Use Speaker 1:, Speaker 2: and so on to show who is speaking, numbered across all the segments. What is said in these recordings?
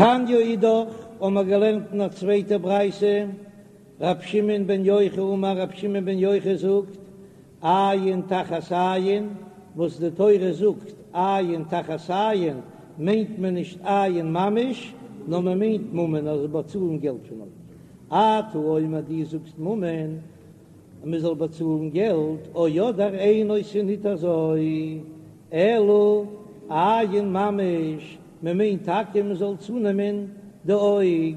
Speaker 1: תניא אידך, האמער געלערנט אין א צווייטע ברייתא, ר' שמעון בן יוחאי אמר ר' שמעון בן יוחאי זאגט, עין תחת עין, וואס די תורה זאגט עין תחת עין, מיינט מען נישט עין ממש, נאר מען מיינט ממון אז באצאלן געלט פון אויג. אתה אומר דו זאגסט ממון אז מען זאל באצאלן געלט, או אדער אינו ס'איז ניט אזוי, אלא עין ממש, מען מיינט טאקע מען זאל צונעמען די אויג,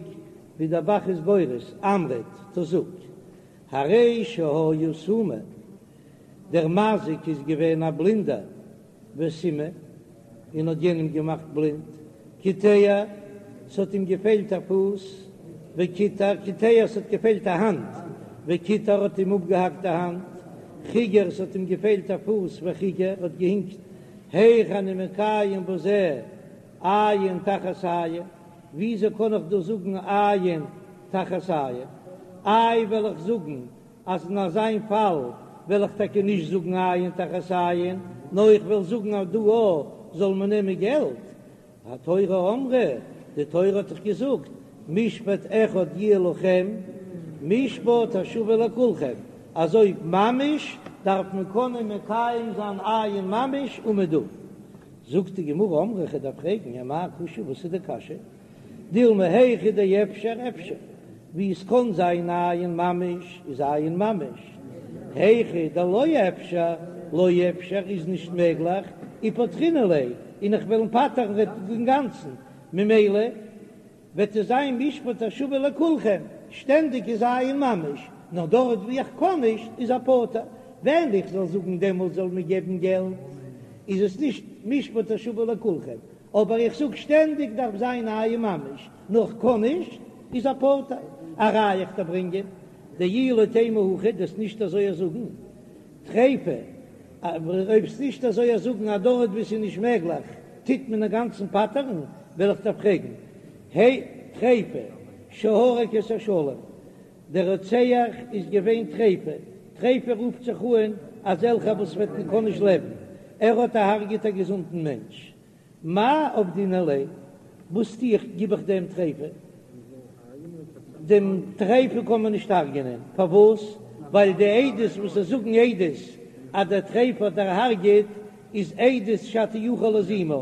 Speaker 1: ווי דער ב"ח איז גורס, אמרת, טא זאג, הרי שהיה סומא, דער מזיק איז געווען א בלינדער, וסימא, און האט יענעם געמאכט בלינד, קיטע, ס'האט אים געפעלט א פוס, וקיטע, קיטע, ס'האט געפעלט א האנט, וקיטע, האט אים אפגעהאקט די האנט, חיגר, ס'האט אים געפעלט א פוס, וחיגר, האט געהינקט, היאך אני מקיים בזה עין תחת עין, וויאזוי קען איך דא זאגן עין תחת עין? איי וועל איך זאגן אז אין אזיין פאל וועל איך טאקע נישט זאגן עין תחת עין, נאר איך וועל זאגן אז דא א זאל מען נעמען געלט. התורה אמרה, די תורה האט דאך געזאגט, משפט אחד יהיה לכם, משפט השווה לכולכם, אז אויב ממש דארף מען קענען מקיים זיין עין ממש אומעדום. זאגט די גמרא אמרי איך דארף פרעגן אמאי קושיא וואס איז די קשיא? דילמא היכא דאפשר אפשר, ווי עס קען זיין עין ממש איז עין ממש, היכא דלא אפשר לא אפשר איז נישט מעגליך, ופטרינן ליה, און איך וועל אים פטר'ן אינגאנצן, ממילא וועט עס זיין משפט השווה לכולכם, שטענדיג איז עין ממש, נאר דארט ווי איך קען נישט איז ער פטור, ווען איך זאל זאגן דעמאלט זאל מען געבן געלט איז עס נישט משפט השווה לכולכם, אבער איך זאג שטענדיג דארף זיין עין ממש, נאר כ'קען נישט, איז ער פטור. א ראיה איך דיר ברענגען, דאי לא תימא הכי, דו'סט נישט אזוי זאגן, טריפה, אויב וועסט נישט אזוי זאגן אז דארט וואו ס'איז נישט מעגליך טוט מען אינגאנצן פטר'ן, וועל איך דיר פרעגן, הי, טריפה, שהרג את השלם, דער רוצח איז געווען טריפה, טריפה רופט זיך אן אזעלכע וואס וועט מען קען נישט לעבן, ער האט אהרגעט א געזונטן מענטש, מאי עבדינן ליה? וואס טו איך, גיב איך דעם טריפה? דעם טריפה קען מען נישט הרג'ענען, פארוואס? ווייל די עדות וואס זיי זאגן עדות אז דער טריפה האט דערהרג'עט איז עדות שאתה יכול להזימה,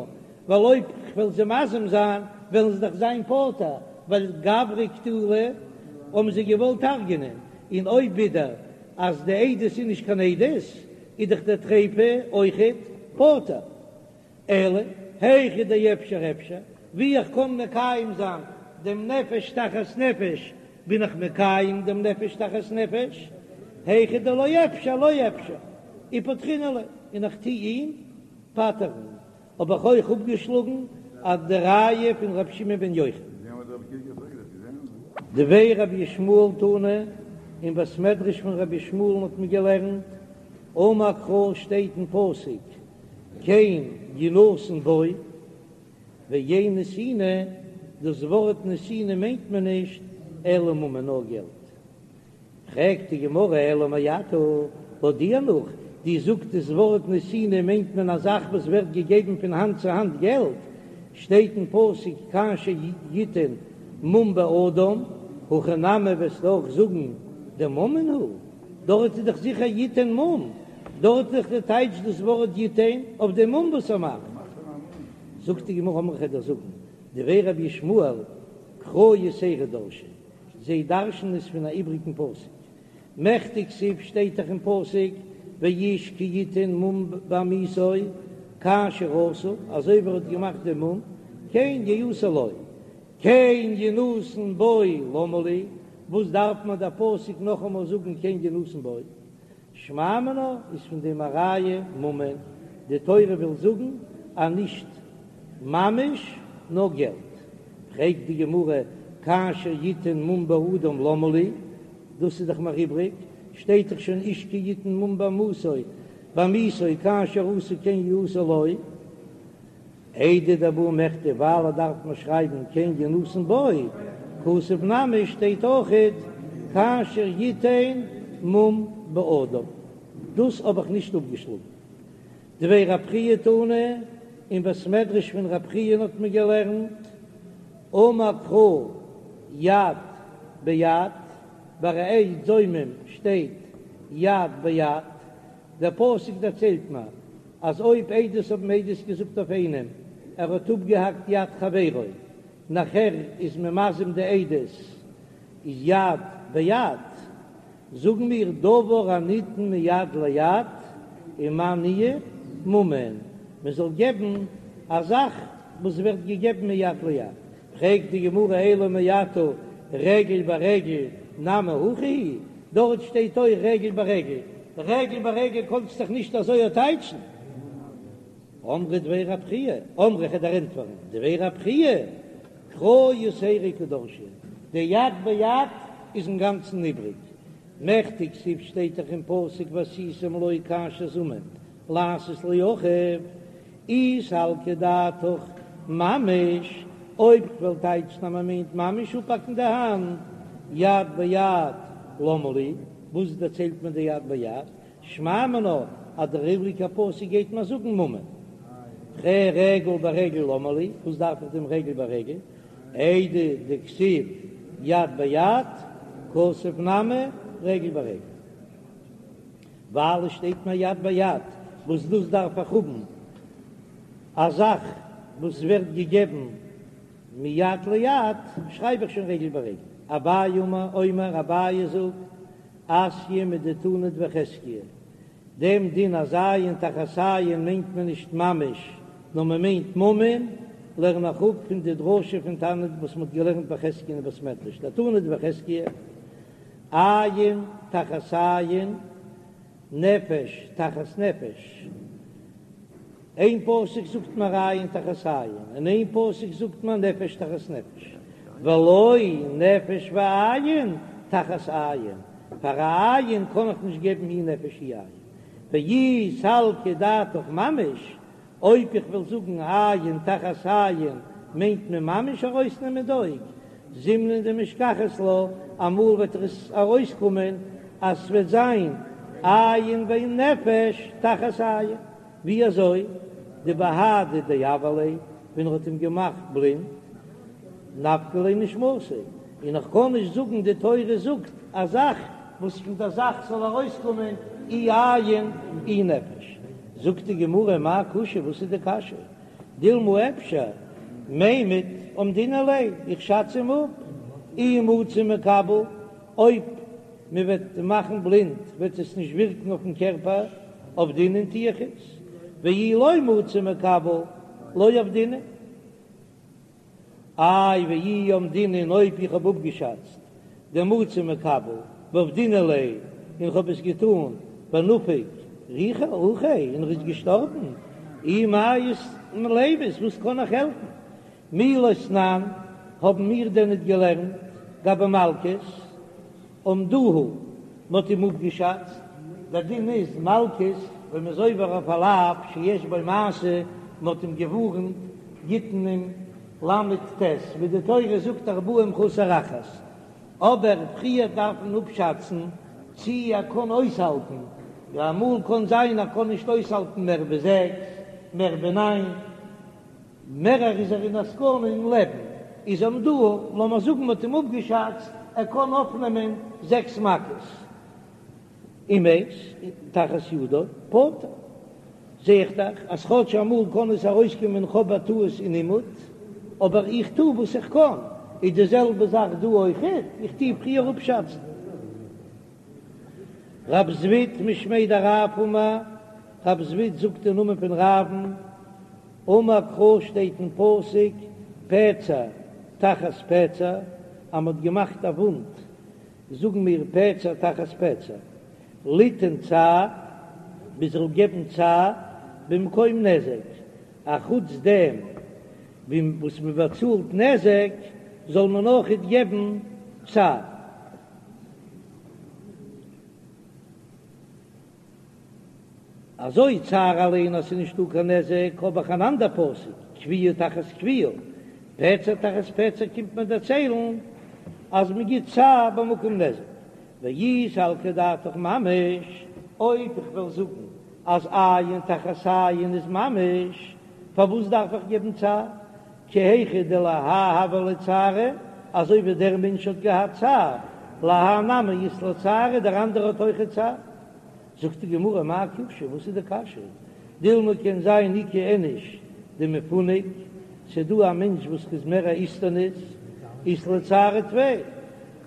Speaker 1: ווייל אויב כ'וועל זיי מזים זיין וועלן זיי דאך זיין פטור, ווייל גברא קטילא האבן זיי געוואלט הרג'ענען, און אויב ווידער אז די עדות איז נישט קיין עדות איז דאך דער טריפה אויכעט פטור. אלא היכא דאפשר אפשר, ווי איך קען מקיים זיין דעם נפש תחת נפש בין איך מקיים דעם נפש תחת נפש, היכא דלא אפשר לא אפשר, ופטרינן ליה, און איך טו אים פטר'ן, האב איך אויך אפגעשלאגן אז די ראיה פון ר' שמעון בן יוחאי. דבי רבי ישמעאל תנא, אין בית מדרש פון רבי ישמעאל'ן האט מען געלערנט, אמר קרא שטייט אין פסוק, כן ינתן בו, ואין נתינה, דאס ווארט נתינה מיינט מען נישט אלא ממון נאר געלט. פרעגט די גמרא אלא מעתה, לויט דיר נאך, דו זאגסט דאס ווארט נתינה מיינט מען א זאך וואס ווערט געגעבן פון האנט צו האנט געלט, שטייט אין פסוק כאשר יתן מום באדם, הכא נמי וועסטו אויך זאגן דממון הוא. דארט איז דאך זיכער יתן מום, דארט איז דאך די טייטש דאס ווארט יתן אויף דעם מום וואס ער מאכט. זאגט די גמרא אמרי כ'וועל דיר זאגן, דבי רבי ישמעאל קרא יתירא דרשי, זיי דרש'ן עס פון א איבריגן פסוק, מכדי כתיב שטייט דאך אין פסוק ואיש כי יתן מום בעמיתו כאשר עשה, אזוי ווי ער האט געמאכט דעם מום, כן יעשה לו, כן ינתן בו למה לי, וואס דארף מיר דער פסוק נאכאמאל זאגן כן ינתן בו? שמע מינה איז פון דעם א ראיה ממון, די תורה וויל זאגן אז נישט ממש נאר געלט. פרעגט די גמרא כאשר יתן מום באדם למה לי, דאס איז דאך מיר איבריג, שטייט דאך שוין איש כי יתן מום בעמיתו, בעמיתו כאשר עשה כן יעשה לו. איידי דבעי מכתב ווייל ער דארף מיר שרייבן כן ינתן בו, כתב נמי שטייט אויכעט כאשר יתן מום באדם, דאס האב איך נישט אפגעשלאגן. דבי רב חייא תנא, אין בית מדרש פון רב חייא האט מען געלערנט. אמר קרא יד ביד, ביי א עד זומם שטייט יד ביד, דער פסוק דערציילט מיר אז אויב עדות האבן עדות געזאגט אויף איינעם ער האט אפגעהאקט יד חברו, נאכער איז מען מזים די עדות איז יד ביד, זאגן מיר דבר הניתן מיד ליד ומאי ניהו ממון, מען זאל געבן א זאך וואס ווערט געגעבן מיד ליד, פרעגט די גמרא אלא מעתה רגל ברגל נמי הכי הוא, דארט שטייט אויך רגל ברגל, רגל ברגל קאנסט דאך נישט אזוי טייטשן. אמרי דבי רב חייא, אמרי כ'וועל דיר ענטפערן, דבי רב חייא, קרא יתירא קא דרשי, די יד ביד איז אינגאנצן איבריג, מכדי כתיב שטייט דאך אין פסוק ועשיתם לו כאשר זמם לעשות לאחיו, אי סלקא דעתך ממש, אויב כ'וועל טייטשן אז מ'מיינט ממש אפהאקן די האנט, יד ביד למה לי, וואס דערציילט מען די יד ביד? שמע מינה אז דער איבריגער פסוק גייט מיר זאגן ממון. רגל ברגל למה לי, וואס דארף איך דעם רגל ברגל? איידי דכתיב יד ביד, כתב נמי רגל ברגל. ווייל עס שטייט מיר יד ביד, וואס דאס דארף איך האבן א זאך וואס ווערט געגעבן מיד ליד, שרייב איך שוין רגל ברגל. אביי אומר, אביי זאגט, אתיא מדתנא דבי חזקיה, דעם דין אז עין תחת עין מיינט מען נישט ממש, נאר מען מיינט ממון, לערן איך אפ פון די דרשה פון תנא וואס מען האט געלערנט ביי חזקיה אין בית מדרש, דתנא דבי חזקיה, עין תחת עין, נפש תחת נפש. איין פסוק זאגט מען עין תחת עין, און איין פסוק זאגט מען נפש תחת נפש, ולא נפש ועין תחת עין, פאר א עין קען איך נישט געבן אי נפש אי עין, ואי סלקא דעתך ממש, אויב איך וועל זאגן עין תחת עין מיינט מען ממש ארויסנעמען די אויג, זימנין דמשכחת לה, אמאל וועט עס ארויסקומען אז ס'וועט זיין עין ונפש תחת עין. ווי אזוי? דבהדי דעוור ליה, ווען ער האט אים געמאכט בלינד, נפקא ליה נשמתיה, און איך קען נישט זאגן די תורה זאגט א זאך וואס פון דער זאך זאל ארויסקומען אי עין אי נפש. זאגט די גמרא מאי קושיא וואס איז די קשיא? דילמא אפשר מימד אמדינן ליה, איך שאץ אים אפ, אי מצי מקבל, אויב מען וועט מאכן בלינד וועט עס נישט ווירקן אויפן קערפער, עבדינן טו איך עס, ואי לא מצי מקבל לא עבדינן. איי ואי אמדינן אויב איך האב אפגעשאצט דמצי מקבל ועבדינן ליה און איך האב עס געטאן ונפק רוחיה און ער איז געשטארבן, אי מאי לימית וואס קען איך העלפן? מי לא תנן, האבן מיר דען ניט געלערנט גבי מלקות? אמדוהו, מ'האט אים אפגעשאצט, דער דין איז מלקות ווען מ'איז עובר אויף א לאו שיש בו מעשה, מ'האט אים געווארנט, גיט מען אים ל"ט, ווי די תורה זאגט ארבעים חסר אחת, אבער פריער דארף מען אפשאצן צי ער קען אויסהאלטן, אמאל קען זיין ער קען נישט אויסהאלטן מער ווי זעקס, מער ווי ניין. מערער איז ער אין א סכנה אין לעבן, איז אמדוהו, לאמיר זאגן מ'האט אים אפגעשאצט ער קען אויפנעמען זעקס מכות, ומת תחת ידו פטור, זע איך דאך אז כאטש אמאל קען עס ארויסקומען כ'האב א טעות אין אימוד, אבער איך טו וואס איך קען, איז די זעלבע זאך דא אויכעט, איך טו פריער אפשאצן. רב זביד משמיה דרב אמר, רב זביד זאגט אין נאמען פון רב'ן, אמר קרא שטייט אין פסוק פצע תחת פצע, אז מ'האט געמאכט א וואונד זאגן מיר פצע תחת פצע, ליתן צער, מ'זאל געבן צער במקום נזק, אחוץ דעם וואס מ'באצאלט נזק זאל מען אויכעט געבן צער. אזוי צער אליין אז ס'איז נישטא קיין נזק, האב איך אן אנדער פסוק, כויה תחת כויה, פצע תחת פצע קומט מען דערציילן אז מען גיט צער במקום נזק, ואי סלקא דעתך ממש, אויב איך וועל זאגן אז עין תחת עין איז ממש, פארוואס דארף איך געבן צער? כי היכי דלהאי הוה ליה צערא, אזוי ווי דער מענטש האט געהאט צער, להאי נמי אית ליה צערא, דער אנדערער האט אויכעט צער. זאגט די גמרא מאי קושיא, וואס איז די קשיא? דילמא קען זיין איכא איניש דמפנק, ס'דא א מענטש וואס איז מער א איסטניס, אית ליה צערא טפי,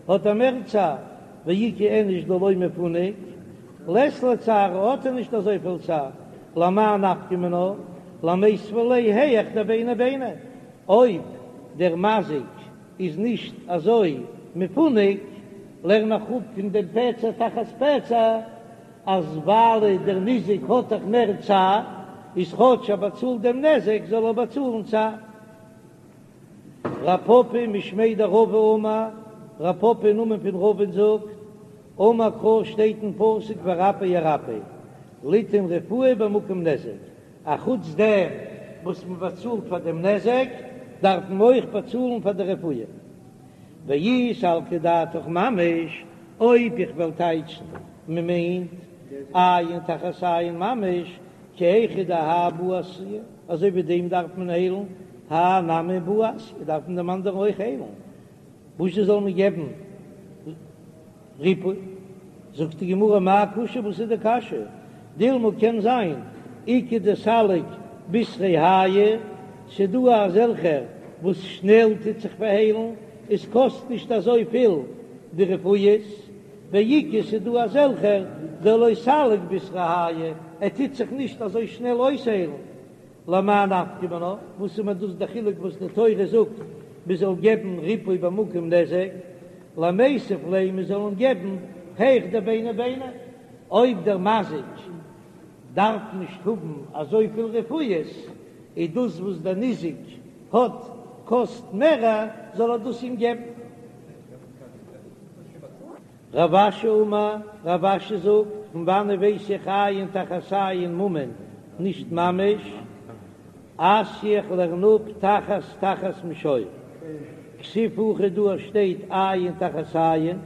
Speaker 1: האט ער מער צער, ואיכא איניש דלא מפנק, לית ליה צערא האט ער נישט אזויפיל צער, למאי נפקא מינה, למיתבה ליה היאך דביני ביני, אויב דער מזיק איז נישט אזוי מפונק, לערן איך אפ פון דעם פצע תחת פצע, אז ווייל דער ניזק האט דאך מער צער, איז כאטש ער באצאלט דעם נזק זאל ער באצאלן צער. רב פפא משמיה דרבא אמר, רב פפא אין נאמען פון רבא'ן זאגט, אמר קרא שטייט אין פסוק ורפא ירפא, ליתן רפואה במקום נזק, א חוץ דעם וואס מען באצאלט פאר דעם נזק, דארף מען אויך באצאלן פאר די רפואה. ואי סלקא דעתך ממש, אויב איך וועל טייטשן מען מיינט עין תחת עין ממש, כי היכי דהאי בעי אסויי, אזוי ווי דעם דארף מען היילן, האי נמי בעי אסויי, דארף מען דעם אנדערן אויך היילן, וואס זאל מען געבן ריפוי? זאגט די גמרא מאי קושיא, וואס איז די קשיא? דילמא קען זיין איכא דסליק בשריה הייא, ס'דא אזעלכע וואס שנעל טוט זיך פארהיילן, עס קאסט נישט אזויפיל די רפואות, ואיכא ס'דא אזעלכע דלא סליק בשריה הייא, ער טוט זיך נישט אזוי שנעל אויסהיילן, למאי נפקא מינה, וואס איז מיר דאס די חילוק וואס די תורה זאגט מען זאל געבן ריפוי במקום נזק, למיתב ליה מען זאל אים געבן היאך דביני ביני, אויב דער מזיק דארף נישט האבן אזויפיל רפואות, איז דאס וואס דער ניזק האט קאסט מערער זאל ער דאס אים געבן. רב אשי אמר, רב אשי זאגט, פון וואנען ווייס איך עין תחת עין ממון, נישט ממש, אתיא איך לערן אפ תחת תחת משור, כתיב הכא דא שטייט עין תחת עין,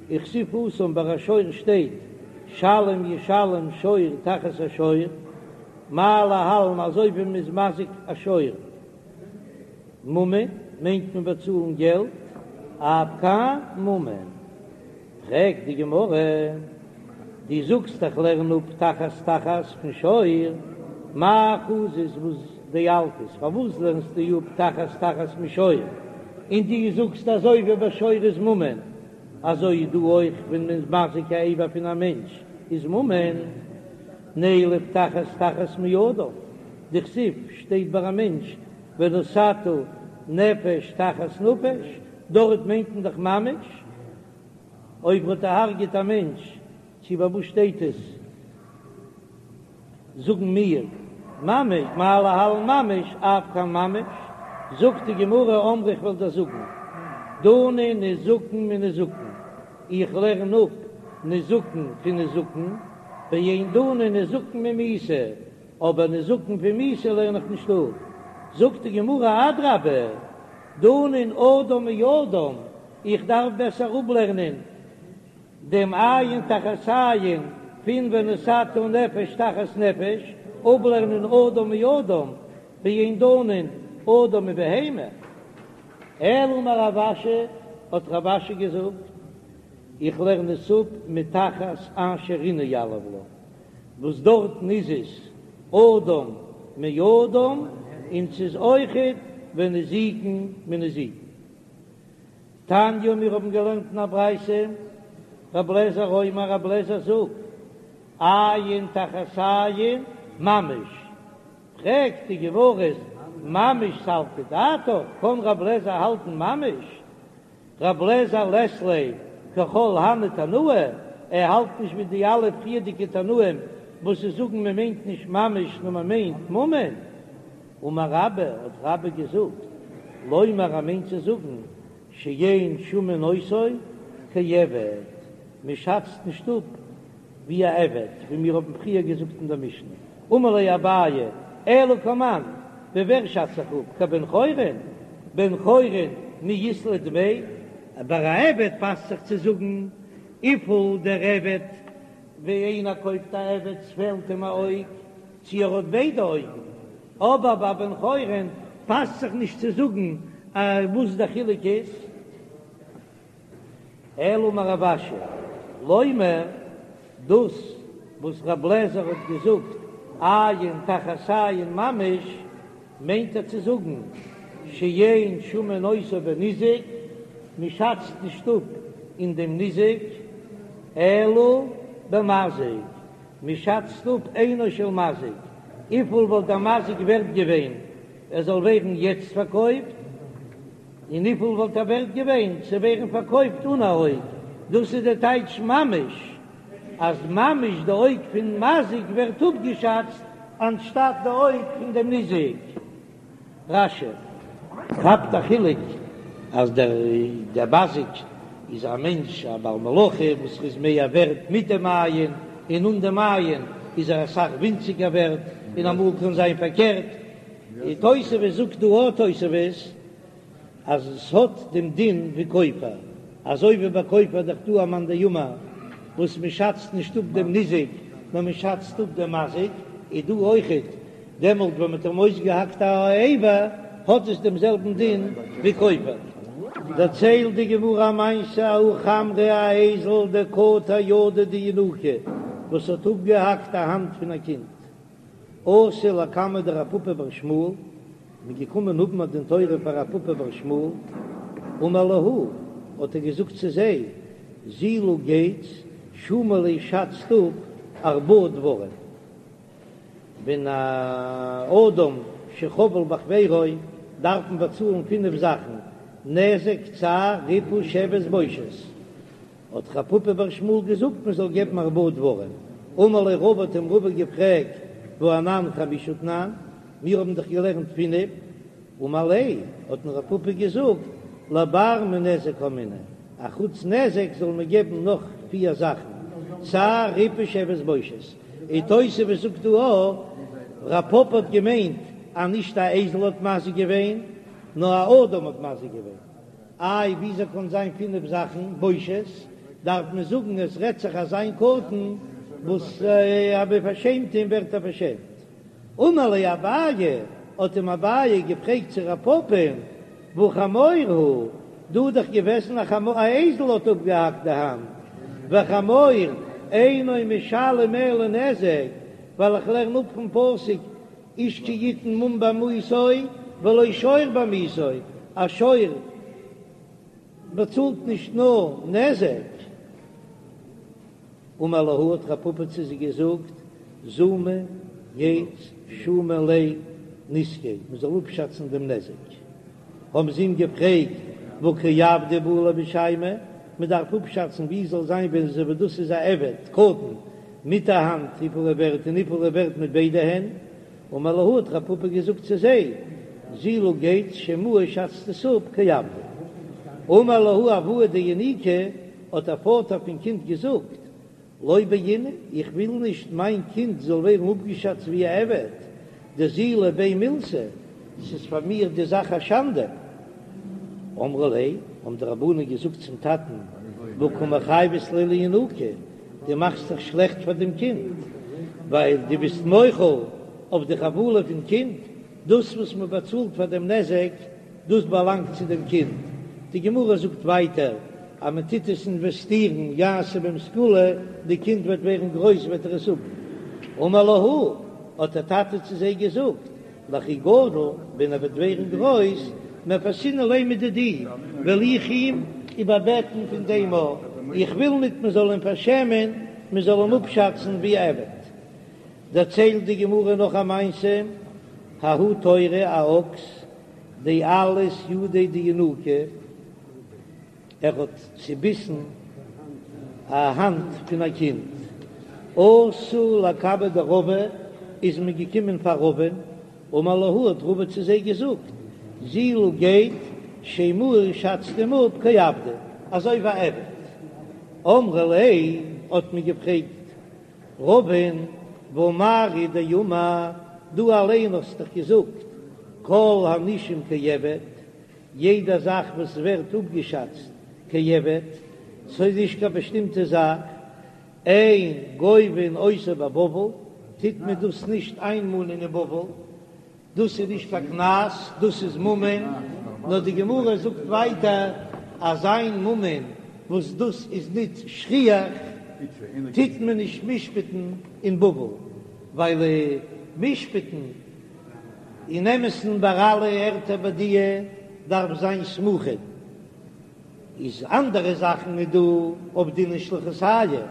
Speaker 1: וכתיב התם ביי א שור שטייט שלם ישלם שור תחת השור, מה להלן אזוי ווי מ'איז מזיק א שור. ממון מיינט מען באצאלן געלט, אף כאן ממון. פרעגט די גמרא, דו זאגסט איך לערן אפ תחת תחת פון שור, מאי חזית וואס דילפת, פארוואס לערנסטו אפ תחת תחת משור, און דו זאגסט אזוי ווי ביי שור איז ממון, אזוי איז דא אויך ווען מען איז מזיק א אבר פון א מענטש איז ממון, נילף תחת תחת מאדם. דכתיב שטייט ביי א מענטש ונתתה נפש תחת נפש, דארט מיינט מען דאך ממש אויב מ'האט דערהרגעט א מענטש, צו ביי וואס שטייט עס זאגן מיר ממש מה להלן ממש אף כאן ממש, זאגט די גמרא אמרי איך וועל דיר זאגן דנין נזקין מנזקין, איך לערן אפ נזקין פון נזקין, ואין דנין נזקין ממיתה, אבער נזקין פון מיתה לערן איך נישט אפ. זאגט די גמרא אדרבה, דנין אדם מאדם, איך דארף בעסער אפלערנען דעם עין תחת עין פון ונתתה נפש תחת נפש, אפלערנען אדם מאדם, ואין דנין אדם מבהמה. אלא אמר רב אשי, האט רב אשי געזאגט, איך לערן עס אפ מתחת אשר ענה יליף לה. וואס דארטן איז עס אדם מאדם און ס'איז אויכעט ונזיקין מנזיקין. תניא מיר האבן געלערנט אין א ברייתא, רב לעזער אומר רב לעזער זאגט, עין תחת עין ממש, פרעגט די גמרא ממש סלקא דעתך, קען רב לעזער האלטן ממש? רב לעזער לית ליה ככל הני תנאי, ער האלט נישט ווי די אלע פריערדיגע תנאים וואס זיי זאגן מען מיינט נישט ממש נאר מען מיינט ממון. אמר רבה, האט רבה געזאגט, לומר ער מיינט צו זאגן שאין שמין אותו כעבד, מען שאצט נישט אפ ווי א עבד, ווי מיר האבן פריער געזאגט אין דער משנה, אמר ליה אביי, אלא כמאן, ווי ווער שאץ איך אפ, כבן חורין? בן חורין מי אית ליה דמי? ביי א עבד פאסט זיך צו זאגן וויפיל דער עבד, ווי איינער קויפט א עבד ס'פעלט אים א אויג, צו ער האט ביידע אויגן, אבער ביי בן חורין. פאסט זיך נישט צו זאגן וואס דער חילוק איז. אלא אמר רב אשי, לומר, דאס וואס רב לעזער האט געזאגט עין תחת עין ממש, מיינט ער צו זאגן שאין שמין אותו בניזק, מען שאצט נישט אפ אין דעם ניזק, אלא במזיק, מען שאצט אפ עינו של מזיק, וויפיל וואלט דער מזיק ווערט געווען ער זאל ווערן יעצט פארקויפט, און וויפיל וואלט ער ווערט געווען צו ווערן פארקויפט אן א אויג, דאס איז די טייטש ממש, אז ממש די אויג פון מזיק ווערט אפגעשאצט אנשטאט די אויג פון דעם ניזק. רש"י כאפט א חילוק אז דער דער מזיק איז א מענטש א בעל מלאכה וואס איז מער ווערט מיט דעם עין, און אן דעם עין איז ער אסאך ווינציגער ווערט, און אמאל קען זיין פארקערט. די תוספות זאגט דא א תוספות אז עס האט דעם דין ווי כופר, אזוי ווי ביי כופר איז דאך דא א מאן דאמר וואס מען שאצט נישט אפ דעם ניזק נאר מען שאצט אפ דעם מזיק, איז דא אויכעט דעמאלט ווען מען האט אים אויסגעהאקט א אבר האט עס דעם זעלבן דין ווי כופר. דערציילט די גמרא א מעשה ההוא חמרא א אייזל דקטע ידא דינוקא וואס האט אפגעהאקט א האנט פון א קינד, אתו לקמיה דרב פפא בר שמואל, מ'איז געקומען האבן א דין תורה פאר רב פפא בר שמואל, אמר להו, האט ער געזאגט צו זיי, זילו גייטס, שומו ליה שאצט אפ ארבעה דברים, ווען א אדם שחבל בחבירו דארף מען באצאלן פינף זאכן, נזק, צער, ריפוי, שבת, בושת. האט רב פפא בר שמואל געזאגט מען זאל געבן ארבעה דברים, אמר ליה רבא האט אים רבא געפרעגט והא אנן חמשה תנן, מיר האבן דאך געלערנט פינף, אמר ליה האט אים רב פפא געזאגט לבר מנזק קאמינא, אחוץ נזק זאל מען געבן נאך פיר זאכן, צער ריפוי שבת בושת, און תוספות זאגט דא א, רב פפא האט געמיינט אז נישט א אייזל האט מזיק געווען, נאר א אדם האט מזיק געווען. איי וויאזוי קען זיין פינף זאכן בושת, דארף מען זאגן עס רעדט זיך אזא מין קטן וואס אז מען פארשעמט אים ווערט ער פארשעמט. אמר ליה אביי, האט אים אביי געפרעגט צו רב פפא'ן, והא חמור הוא, דא איז דאך געוועזן א חמור, א אייזל האט אפגעהאקט די האנט, וחמור אינו משלם אלא נזק, ווייל איך לערן אפ פון פסוק איש כי יתן מום בעמיתו ולא שור בעמיתו, א שור באצאלט נישט נאר נזק. אמר להו האט רב פפא צו זיי געזאגט, זומו גייטס שומו ליה נזקיה, מען זאל אפשאצן דעם נזק. האבן זיי אים געפרעגט, והא כעבדא בעי למשיימיה, מען דארף אפשאצן ווי זאל זיין ווען אזוי ווי דאס איז א עבד קטן מיט א האנט וויפיל ער ווערט און וויפיל ער ווערט מיט ביידע הענט, אמר להו האט רב פפא געזאגט צו זיי, זילו גייטס שיימוה שאצט עס אפ כעבדא. אמר להו אבוה דינוקא, האט דער פאטער פון קינד געזאגט, לא בעינא, איך וויל נישט מיין קינד זאל ווערן אפגעשאצט ווי א עבד, דזילא ביה מילתא, ס'איז פאר מיר די זאך א שאנדע. אמרו ליה, האבן די רבנן געזאגט צום טאטן, והא קא מחייבת ליה לינוקא, דו מאכסט זיך שלעכט פאר דעם קינד, ווייל דו ביסט מוחל אויף די חבלה פון קינד, דאס וואס מען באצאלט פאר דעם נזק, דאס באלאנגט צו דעם קינד. די גמרא זאגט ווייטער אז מען טוט עס אינוועסטירן, יעשה בהם סגולה, די קינד וועט ווערן גרויס וועט ער עס האבן. אמר להו, האט דער טאטע צו זיי געזאגט, לכי גדיל, ווען ער וועט ווערן גרויס, מפייסנא ליה מדידי, וועל איך אים איבערבעטן פון דעם א, איך וויל ניט מען זאל אים פארשעמען, מען זאל אים אפשאצן ווי א עבד. דערציילט די גמרא נאך א מעשה, ההוא תורא א אקס, דאלס ידיה דינוקא, ער האט צוביסן א האנט פון א קינד, אתו לקמיה דרבא, איז מען געקומען פאר רבא'ן, אמר להו האט רבא צו זיי געזאגט, זילו גייט שיימוה שאצט אים אפ כעבדא, אזוי ווי א עבד. אמרי ליה האט מען געפרעגט רבא'ן, והא מר הוא דאמר, דו אליין האסט דאך געזאגט כל הנישום כעבד, יעדע זאך וואס ווערט אפגעשאצט כעבד, ס'איז נישט קיין באשטימטע זאך, אין גובין אותו בבבל, טוט מען דאס נישט איינמאנען אין בבל. דאס איז נישט קיין קנס, דאס איז ממון, נאר די גמרא זאגט ווייטער אז איין ממון וואס דאס איז ניט שכיח טוט מען נישט משפט'ן אין בבל, ווייל משפט'ן אין אמת'ן ביי אלע ערטער ביי די דארף זיין סמוכין. איז אנדערע זאכן איז דא עבדינן שליחותייהו,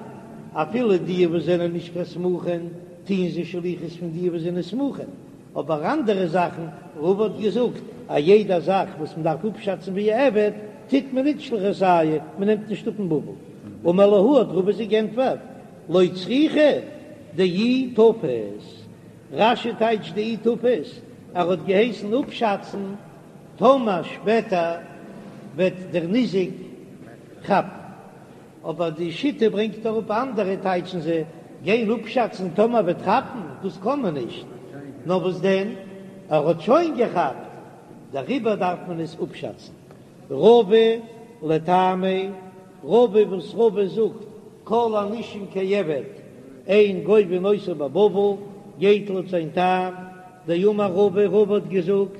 Speaker 1: אפילו די וואס זענען נישט קיין סמוכין טוען זיי שליחות פון די וואס זענען סמוכין, אבער אנדערע זאכן, רבא האט געזאגט א יעדע זאך וואס מען דארף אפשאצן ווי א עבד, טוט מען נישט שליחותייהו, מען נעמט נישט אפ אין בבל. אמר להו האט רבא זיי גענטפערט, לא צריכא דאי תפס, רש"י טייטשט דאי תפס, ער האט געהייסן אפשאצן טאמער שפעטער וועט דער ניזק כאפן. אבער די שיטה ברענגט אראפ אנדערע טייטשן זיי גיין אפשאצן טאמער וועט כאפן, דאס קען מען נישט, נאר וואס דען ער האט שוין געכאפט דעריבער דארף מען עס אפשאצן. רבא לטעמיה, רבא וואס רבא זאגט כל הנישום כעבד אין גובין אותו בבבל גייט לויט זיין טעם, דאמר רבא, רבא האט געזאגט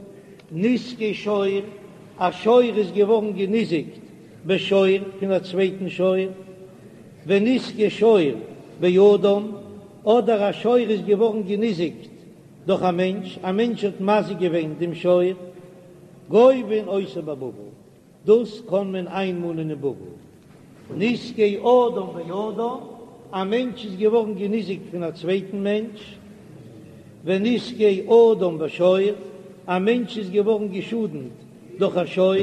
Speaker 1: נזקי שור, א שור איז געווארן געניזיקט בשור פון א צווייטן שור, ונזקי שור באדם, אדער א שור איז געווארן געניזיקט דורך א מענטש, א מענטש האט מזיק געווען דעם שור, גובין אותו בבבל, דאס קען מען איינמאנען אין בבל. נזקי אדם באדם, א מענטש איז געווארן געניזיקט פון א צווייטן מענטש, ונזקי אדם בשור, א מענטש איז געווארן געשאדנט דורך א שור,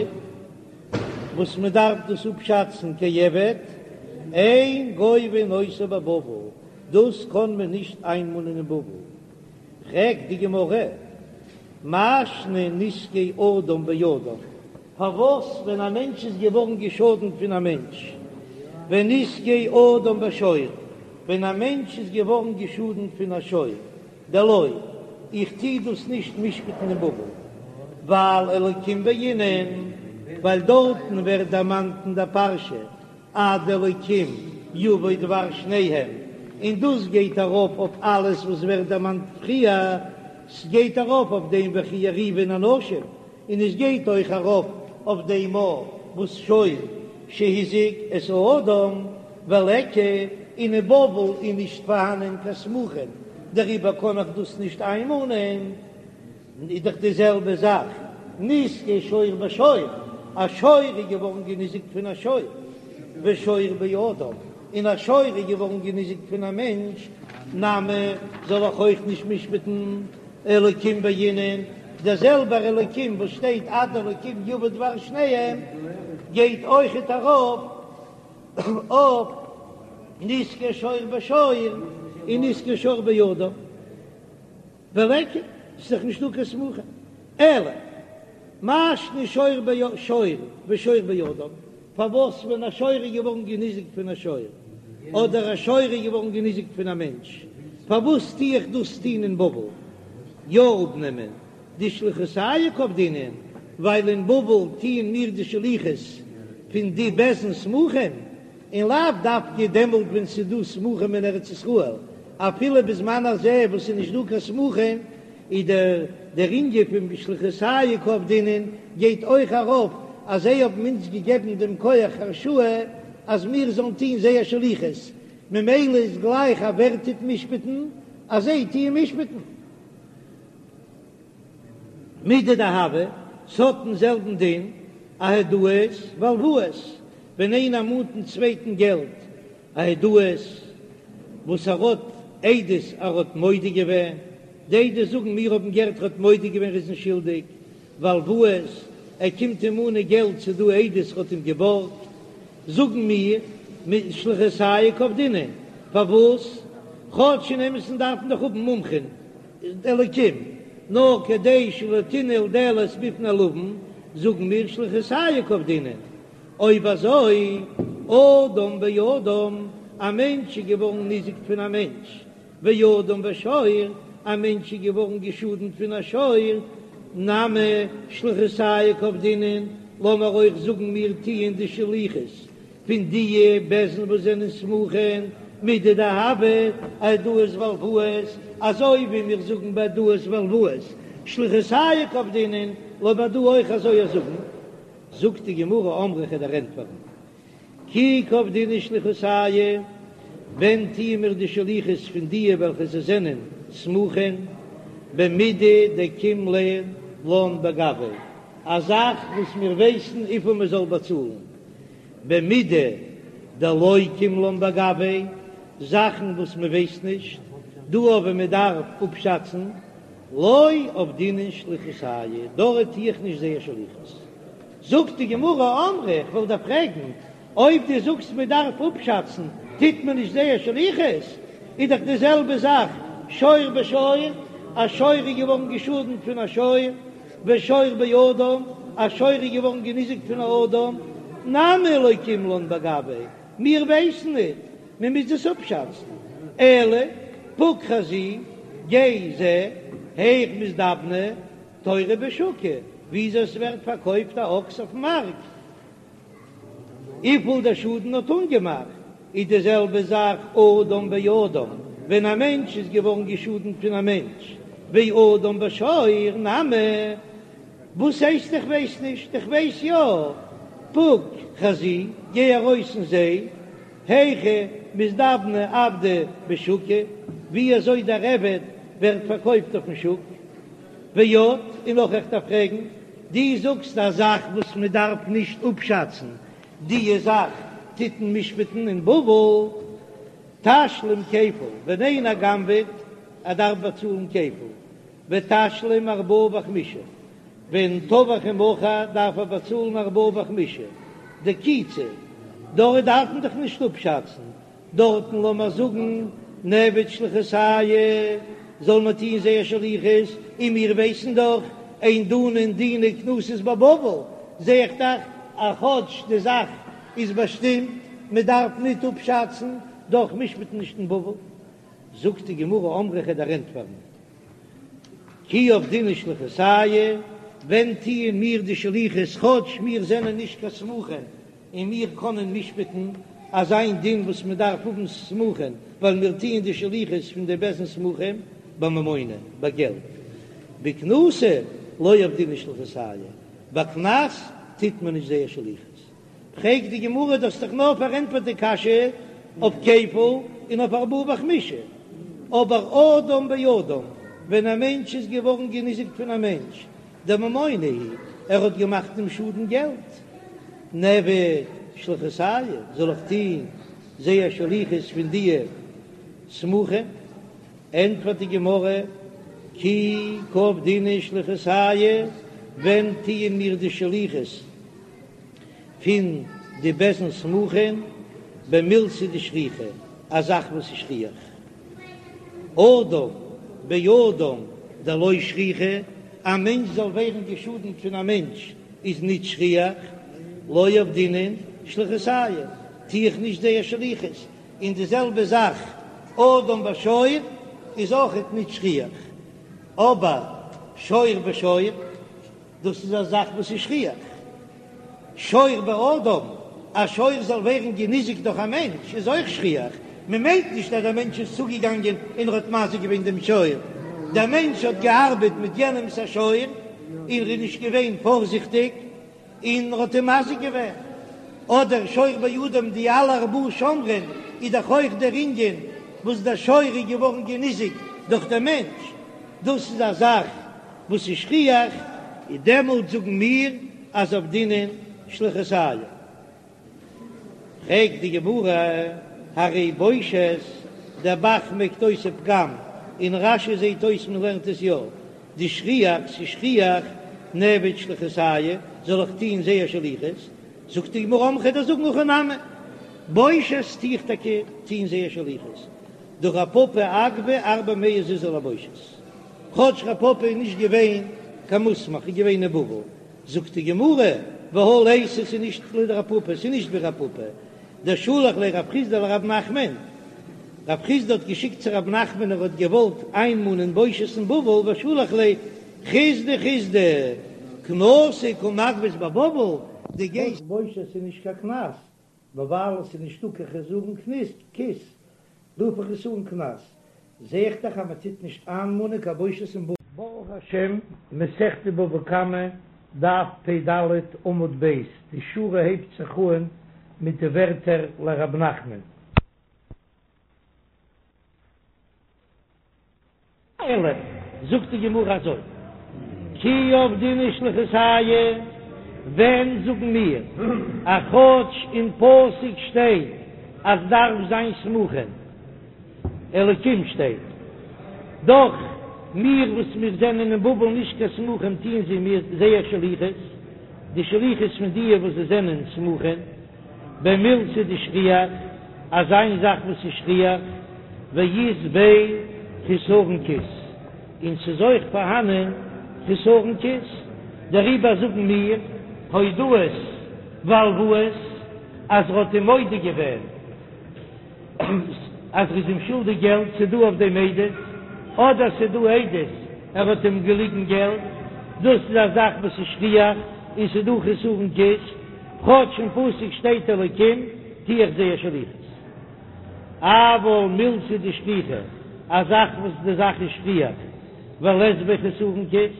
Speaker 1: וואס מען דארף דאס אפשאצן כעבד, אין גובין אותו בבבל, דאס קען מען נישט איינמאנען אין בבל. פרעגט די גמרא, מאי שנא נזקי אדם באדם, פארוואס ווען א מענטש איז געווארן געשאדנט פון א מענטש, ונזקי אדם בשור, ווען א מענטש איז געווארן געשאדנט פון א שור, דלא, איך טוה דאס נישט משפט'ן אין בבל, ווייל אלקים בעינן, ווייל דארטן ווערט דערמאנט אין דער פרשה עד אלקים יבוא דבר שניהם, און דאס גייט ארויף אויף אלעס וואס ווערט דערמאנט פריער, ס'גייט ארויף אויף דעם וכי יריבון אנשים, און עס גייט אויך ארויף אויף דעם וואס שור שהזיק את האדם וליכא, און אין בבל איז נישט פארהאנען קיין סמוכין, דעריבער קען איך דאס נישט איינמאנען. איז דאך די זעלבע זאך נזקי שור בשור, א שור איז געווארן געניזיקט פון א שור, ושור באדם, און א שור איז געווארן געניזיקט פון א מענטש, נמי זאל איך אויך נישט משפט'ן אלקים בעינן, דער זעלבער אלקים וואס שטייט עד אלקים יבא דבר שניהם גייט אויכעט ארויף אויף נזקי שור בשור און נזקי שור באדם. וליכא, ס'איז דאך נישטא קיין סמוכין. אלא מאי שנא שור בשור ושור באדם, פארוואס ווען א שור איז געווארן געניזיקט פון א שור, אדער א שור איז געווארן געניזיקט פון א מענטש, פארוואס טו איך דאס טון אין בבל? יא אפנעמען דשליחותייהו קא עבדינן, ווייל אין בבל טוען מיר די שליחות פון די בית דין סמוכים, און לאו דווקא דעמאלט ווען ס'איז דא סמוכים אין ארץ ישראל, אפילו בזמן הזה וואס ס'איז נישט דא קיין סמוכים, איז דער דער ענין פון שליחותייהו קא עבדינן גייט אויך ארויף אז זיי האבן אונז געגעבן דעם כח הרשאה אז מיר זאלן טון זייער שליחות, ממילא איז גלייך אז ווער טוט משפט'ן אז זיי טוען משפט'ן. מידי דהוה, ס'האט דעם זעלבן דין, אהודאות והלוואות, ווען איינער מאנט דעם צווייטן געלט, אהודאות וואס ער האט עדות ער האט מודה געווען, די עדות זאגן מיר האבן געהערט ער האט מודה געווען ער איז נישט שולדיג, והלוואות, ער קומט אים מאנען געלט ס'איז דא עדות ער האט אים געבארגט, זאגן מיר, שליחותייהו קא עבדינן, פארוואס? כאטש אין אמת'ן דארף מען דאך האבן מומחים, אלקים, נאר כדי שלא תנעול דלת בפני לווין, זאגן מיר שליחותייהו קא עבדינן. אויב אזוי, אדם באדם, א מענטש איז געווארן ניזוק פון א מענטש, ואדם בשור, א מענטש איז געווארן געשאדנט פון א שור, נמי שליחותייהו קא עבדינן, לאמיר אויך זאגן מיר טוען די שליחות פון דיע בית דין וואס זענען סמוכין מידי דהוה אהודאות והלוואות, אזוי ווי מיר זאגן ביי הודאות והלוואות. שליחותייהו קא עבדינן, לאמיר דא אויך אזוי זאגן. זאגט די גמרא אמרי כ'וועל דיר ענטפערן כי קעבדינן שליחותייהו, ווען טוען מיר די שליחות פון דיע וועלכע זיי זענען סמוכין במידי דקים לן בגויה, א זאך וואס מיר ווייסן וויפיל מען זאל באצאלן, במידי דלא קים לן בגויה, זאכן וואס מען ווייסט נישט, דא אבער מען דארף אפשאצן, לא עבדינן שליחותייהו, דארט טו איך נישט זייער שליחות. זאגט די גמרא, אמרי, איך וועל דיר פרעגן, אויב דו זאגסט מען דארף אפשאצן, טוט מען נישט זייער שליחות? איז דאך די זעלבע זאך שור בשור, א שור איז געווארן געשאדנט פון א שור, ושור באדם, א שור איז געווארן געניזיקט פון א אדם, נמי לא קים לן בגויה, מיר ווייסן ניט, מען מוז עס אפשאצן, אלא פוק חזי, גיי זע, היאך מזדבני תורא בשוקא, וויאזוי עס ווערט פארקויפט א אקס אויפן מארק, וויפיל דער שאדן האט אנגעמאכט, איז די זעלבע זאך אדם באדם, ווען א מענטש איז געווארן געשאדנט פון א מענטש, ואדם בשור נמי, וואס הייסט איך ווייס נישט, איך ווייס יא, פוק חזי, גיי ארויס און זע, היכי מזדבני עבדא בשוקא, ווי אזוי דער עבד ווערט פארקויפט אויפן שוק. ועוד, און נאך איך דארף פרעגן, דו זאגסט א זאך וואס מען דארף נישט אפשאצן, דיע זאך טוט מען משפט'ן אין בבל, תשלום כפל, ווען איינער גנב'עט, ער דארף באצאלן כפל, ותשלום ארבעה וחמישה, ווען טבח ומכר דארף ער באצאלן ארבעה וחמישה, דקיצי, דארט דארף מען דאך נישט אפשאצן, דארטן לאמיר זאגן נעביד שליחותייהו זאל מען טוהן זייער שליחות, און מיר ווייסן דאך אין דנין דיני קנסות בבבל, זע איך דאך אז כאטש די זאך איז באשטימט מען דארף ניט אפשאצן, דאך משפט מען נישט אין בבל. זאגט די גמרא אמרי כ'וועל דיר ענטפערן כי עבדינן שליחותייהו, ווען טוען מיר די שליחות כאטש מיר זענען נישט קיין סמוכין און מיר קענען משפט'ן אזא דין וואס מען דארף האבן סמוכין, ווייל מיר טוען די שליחות פון די בית דין סמוכים בממונא, ביי געלט. בקנסא לא עבדינן שליחותייהו, ביי קנס טוט מען נישט זייער שליחות. פרעגט די גמרא, דו האסט דאך נאר פארענטפערט די קשיא אויף כפל און אויף ארבעה וחמישה, אבער אדם באדם, ווען א מענטש איז געווארן געניזיקט פון א מענטש, דממונא הוא, ער האט געמאכט דעם שאדן געלט, נעביד שליחותייהו, זאל איך טוהן זייער שליחות פון דיע סמוכים? ענטפערט די גמרא, כי קעבדינן שליחותייהו, ווען טוען מיר די שליחות פון די בית דין סמוכים? במילתא דשכיחא, א זאך וואס איז שכיח. אדם באדם דלא שכיחא, א מענטש זאל ווערן געשאדנט פון א מענטש איז ניט שכיח, לא עבדינן שליחותייהו, טו איך נישט זייער שליחות, און די זעלבע זאך אדם בשור איז אויכעט ניט שכיח, אבער שור בשור. דאס איז א זאך וואס איז שכיח. שור באדם, א שור זאל ווערן געניזיקט דורך א מענטש איז אויך שכיח. מען מיינט נישט אז דער מענטש איז צוגעגאנגען און ער האט מזיק געווען דעם שור. דער מענטש האט געארבעט מיט יענעמ'ס א שור און ער איז נישט געווען פארזיכטיג און ער האט אים מזיק געווען. אדער שור באדם, די אלע ארבעה שומרים איז דאך אויך דער ענין וואס דער שור איז געווארן געניזיקט דורך דעם מענטש. דאס איז א זאך וואס איז שכיח, און דעמאלט זאגן מיר אז עבדינן שליחותייהו. פרעגט די גמרא, הרי בושת, דער ב"ח מעקט אויס ופגם, אין רש"י זעט אויס מען לערנט עס יא, דשכיח, ס'איז שכיח, נעביד שליחותייהו, זאל איך טוהן זייער שליחות? זאגט די גמרא, אמרי כ'וועל דיר זאגן הכי נמי, בושת טו איך טאקע טוהן זייער שליחות, דהא רב פפא אגבי ארבע מאה זוזי לבושת. כאטש רב פפא איז נישט געווען קיין מוסמך איז געווען אין בבל, זאגט די גמרא, והא ליתא ס'איז נישט לדרב פפא, ס'איז נישט ווי רב פפא, דשלח ליה רב חסדא לרב נחמן, רב חסדא האט געשיקט צו רב נחמן ער האט געוואלט איינמאנען בושת אין בבל ושלח ליה חסדא חסדא קנסא קא מגבית בבבל, דו גייסט בושת איז נישט קיין קנס, נאר ווייל עס איז נישטא קיין חסרון כיס, רוף איך עס אן קנס, זע איך דאך אז מען טוט נישט איינמאנען קיין בושת אין בבל. ברוך השם, מסכת בבא קמא, דף פ"ד עמוד ב', די שורה הייבט זיך אן מיט די ווערטער לרב נחמן. אלא, זאגט די גמרא אזוי, כי עבדינן שליחותייהו, ווען זאגן מיר אז כאטש אין פסוק שטייט אז דארף זיין סמוכין, אלקים שטייט דאך מיר וואס מיר זענען אין בבל נישט קיין סמוכים טוען זיי מיר זייער שליחות, די שליחות פון דיע וואס זיי זענען סמוכים, במילתא דשכיח, אזא זאך וואס איז שכיח, ואית ביה חסרון כיס, און ס'איז אויך פארהאנען חסרון כיס, דעריבער זאגן מיר הודאות והלוואות אז ר'האט אים מודה געווען אז ר'איז אים שולדיג געלט, ס'דא אויף דעם עדות, אדער ס'דא עדות ער האט אים געליגן געלט, דאס איז א זאך וואס איז שכיח און ס'דא חסרון כיס. כאטש אין פסוק שטייט אלקים טו איך זייער שליחות. אבל מילתא דשכיחא, א זאך וואס די זאך איז שכיח, ולית ביה חסרון כיס,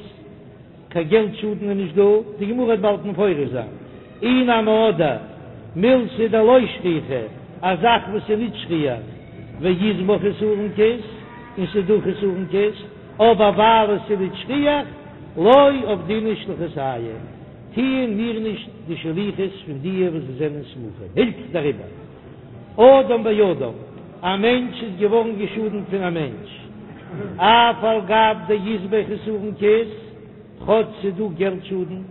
Speaker 1: קיין געלט שאדן איז נישט דא, די גמרא וועט באלד מפרש זיין, אי נמי אדער מילתא דלא שכיחא, א זאך וואס איז נישט שכיח, ואית בה חסרון כיס, און ס'איז דא חסרון כיס, אבער ווייל עס איז נישט שכיח, לא עבדינן שליחותייהו. טוען מיר נישט די שליחות פון דיע וואס זיי זענען סמוכים, הילכך דעריבער אדם באדם, א מענטש איז געווארן געשאדנט פון א מענטש, אף על גב דאית ביה חסרון כיס, כאטש ס'איז דא געלט שאדן,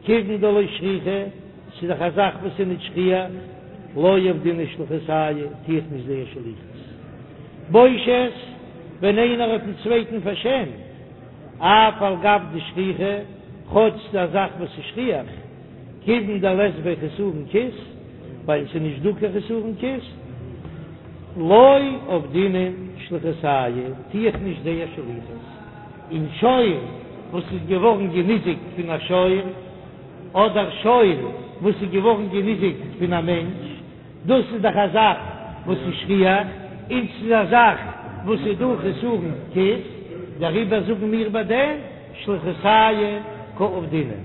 Speaker 1: כיוון דלא שכיחא, ס'איז דאך א זאך וואס איז נישט שכיח, לא עבדינן שליחותייהו, טו איך נישט זייער שליחות. בושת, ווען איינער האט דעם צווייטן פארשעמט, אף על גב דשכיחא, כאטש ס'איז א זאך וואס איז שכיח, כיוון דלית ביה חסרון כיס, ווייל ס'איז נישט דא קיין חסרון כיס, לא עבדינן שליחותייהו, טו איך נישט זייער שליחות. און שור וואס איז געווארן געניזיקט פון א שור, אדער שור וואס איז געווארן געניזיקט פון א מענטש, דאס איז דאך א זאך וואס איז שכיח, און ס'איז א זאך וואס איז דא חסרון כיס, דעריבער זאגן מיר ביי דעם שליחותייהו קא עבדינן.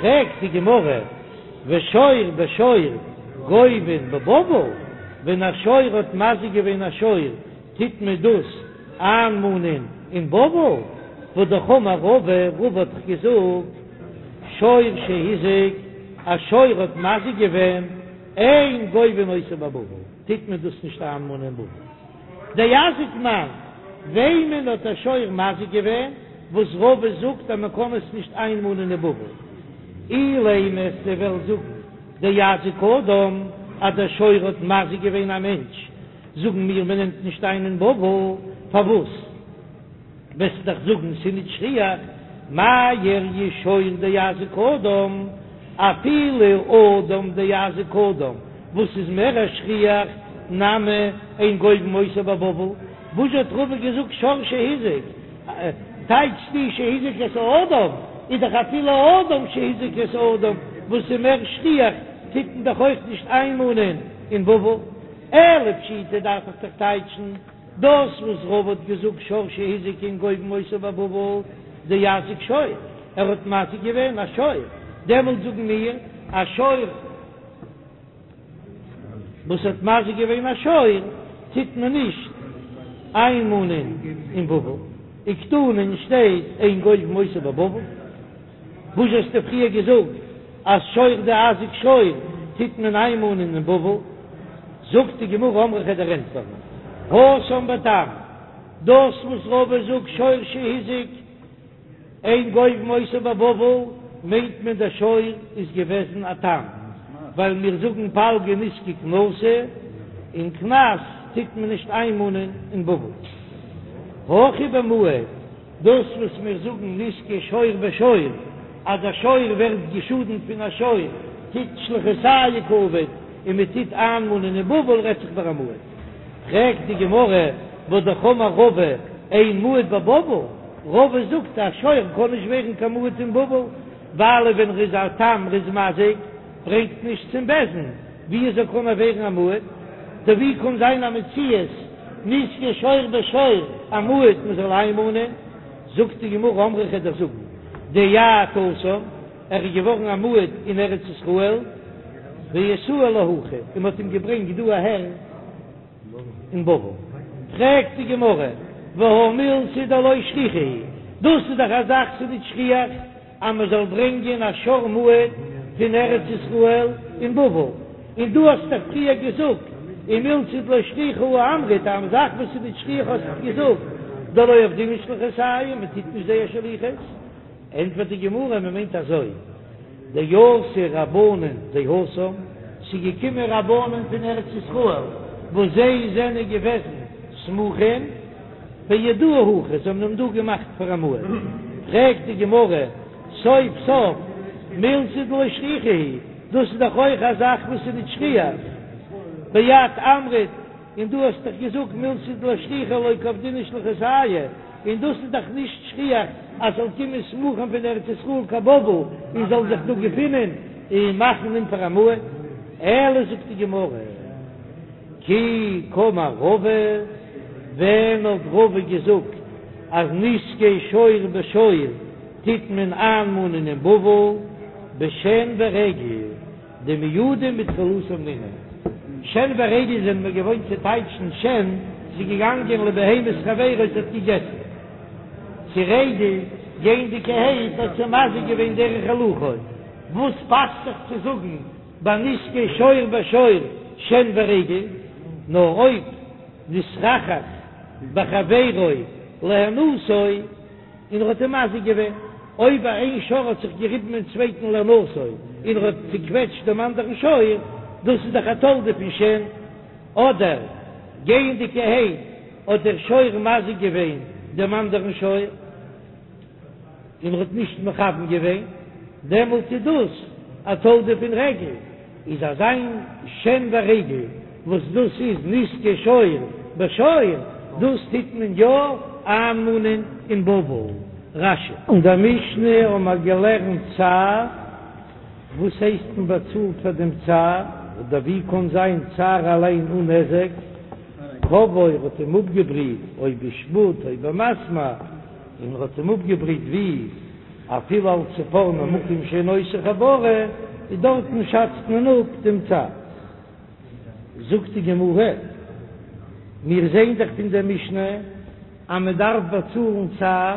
Speaker 1: פרעגט די גמרא, ושור בשור גובין בבבל, ווען א שור האט מזיק געווען א שור, טוט מען דאס איינמאנען אין בבל? והא אמר רבא, רבא האט דאך געזאגט, שור שהזיק, א שור האט מזיק געווען, אין גובין אותו בבבל, טוט מען דאס נישט איינמאנען אין בבל. דאזיק מאן, וועמען האט א שור מזיק געווען, וואס רבא זאגט אז מען קען עס נישט איינמאנען אין בבל? אילימא וועסטו וועלן זאגן דאזיק אדם, אז דער שור האט מזיק געווען א מענטש, זאגן מיר מען נעמט נישט איין אין בבל, פארוואס? וועסט דאך זאגן ס'איז נישט שכיח, מאי איריא שור דאזיק אדם, אפילו אדם דאזיק אדם, וואס איז מער א שכיח, נמי אין גובין אותו בבבל, וואס האט רבא געזאגט שור שהזיק, טייטשסטו שהזיק את האדם, איז דאך אפילו אדם שהזיק את האדם, וואס איז מער שכיח, טוט מען דאך אויך נישט איינמאנען אין בבל, אלא פשיטא דארף איך דאך טייטשן. דאס וואס רבא האט געזאגט שור שהזיק אין גובין אותו בבבל דאזיק שור, ער האט מזיק געווען א שור, דעמאלט זאגן מיר א שור וואס האט מזיק געווען א שור טוט מען נישט איינמאנען אין בבל, וקתני שטייט אין גובין אותו בבבל. וואס האסטו פריער געזאגט אז שור דאזיק שור טוט מען איינמאנען אין בבל? זאגט די גמרא אמרי כ'וועל דיר ענטפערן התם בתם, דאס וואס רבא זאגט שור שהזיק אין גובין אותו בבבל מיינט מען דער שור איז געוועזן א תם, ווייל מיר זאגן פלגא נזקא קנסא, און קנס טוט מען נישט איינמאנען אין בבל. הכא במועד. דאס וואס מיר זאגן נזקי שור בשור, אז א שור ווערט געשאדנט פון א שור, טוט שליחותייהו קא עביד און מען טוט איינמאנען אין בבל רעדט זיך ביי א מועד. פרעגט די גמרא, והא אמר רבא אין מועד בבבל, רבא זאגט א שור קען נישט ווערן קיין מועד אין בבל, ווייל ווען ר'איז א תם ר'איז מזיק ברענגט נישט צום בית דין, ווי אזוי קען ער ווערן א מועד? טא ווי קען זיין א מציאות נזקי שור בשור א מועד מען זאל איינמאנען? זאגט די גמרא אמרי כ'וועל דיר זאגן דאייעד התם, ער איז געווארן א מועד אין ארץ ישראל, ואתאי להכא, און מ'האט אים געברענגט דא אהער אין בבל. פרעגט די גמרא, והא מילתא דלא שכיחא היא, דאס איז דאך א זאך ס'איז נישט שכיח אז מ'זאל ברענגען א שור מועד פון ארץ ישראל אין בבל, און דו האסט דאך פריער געזאגט ומילתא דלא שכיחא הא אמרת, א זאך וואס איז נישט שכיח האסטו געזאגט דלא עבדינן שליחותייהו, מ'טוט נישט זייער שליחות. ענטפערט די גמרא, מען מיינט אזוי, דאתו רבנן דהתם, ס'איז געקומען רבנן פון ארץ ישראל וואס זיי זענען געוועזן סמוכים ואייעדוהו הכא, זיי האבן אים דא געמאכט פאר א מועד. פרעגט די גמרא, סוף סוף מילתא דלא שכיחא היא, דאס איז דאך אויך א זאך וואס איז נישט שכיח, ואת אמרת, און דו האסט דאך געזאגט מילתא דלא שכיחא לא קעבדינן שליחותייהו, און דאס איז דאך נישט שכיח אז ס'זאל קומען סמוכים פון ארץ ישראל קיין בבל און זאל זיך דא געפינען און מאכן אים פאר א מועד, אלא זאגט די גמרא כי קאמר רבא, ווען האט רבא געזאגט אז נזקי שור בשור טוט מען איינמאנען אין בבל בשן ורגל? דמועדים בתחילתן נינהו. שן ורגל זענען מיר געוואוינט צו טייטשן שן, ס'איז געגאנגען לבהמת חברו ס'האט געגעסן. צו רגל, גייענדיגערהייט האט זי מזיק געווען דרך הילוכו. וואס פאסט זיך צו זאגן ביי נזקי שור בשור שן ורגל? נאר אויב נתחכך בחבירו להנאתו. און ער האט אים מזיק געווען, אויב איין שור האט זיך געריבן אין צווייטן להנאתו און ער האט צוקוועטשט דעם אנדערן שור, דאס איז דאך א תולדה פון שן, אדער גייענדיגערהייט האט דער שור מזיק געווען דעם אנדערן שור און ער האט נישט מכוון געווען, דעמאלט איז דאס א תולדה פון רגל. איז אזא מין שן ורגל וואס דאס איז נזקי שור בשור, דאס טוט מען יא איינמאנען אין בבל. רש"י. אין דער משנה האבן מיר געלערנט צער, וואס הייסט מען באצאלט פאר דעם צער, אדער ווי קען זיין צער אליין אן נזק, כוואו האט אים אפגעבריט, או בשפוד או במסמר, און ער האט אים אפגעבריט ווי אפילו על צפורנו מקום שאינו עושה חבורה, איז דארטן שאצט מען אפ דעם צער. זאגט די גמרא, מיר זעען דאך פון דער משנה אז מען דארף באצאלן צער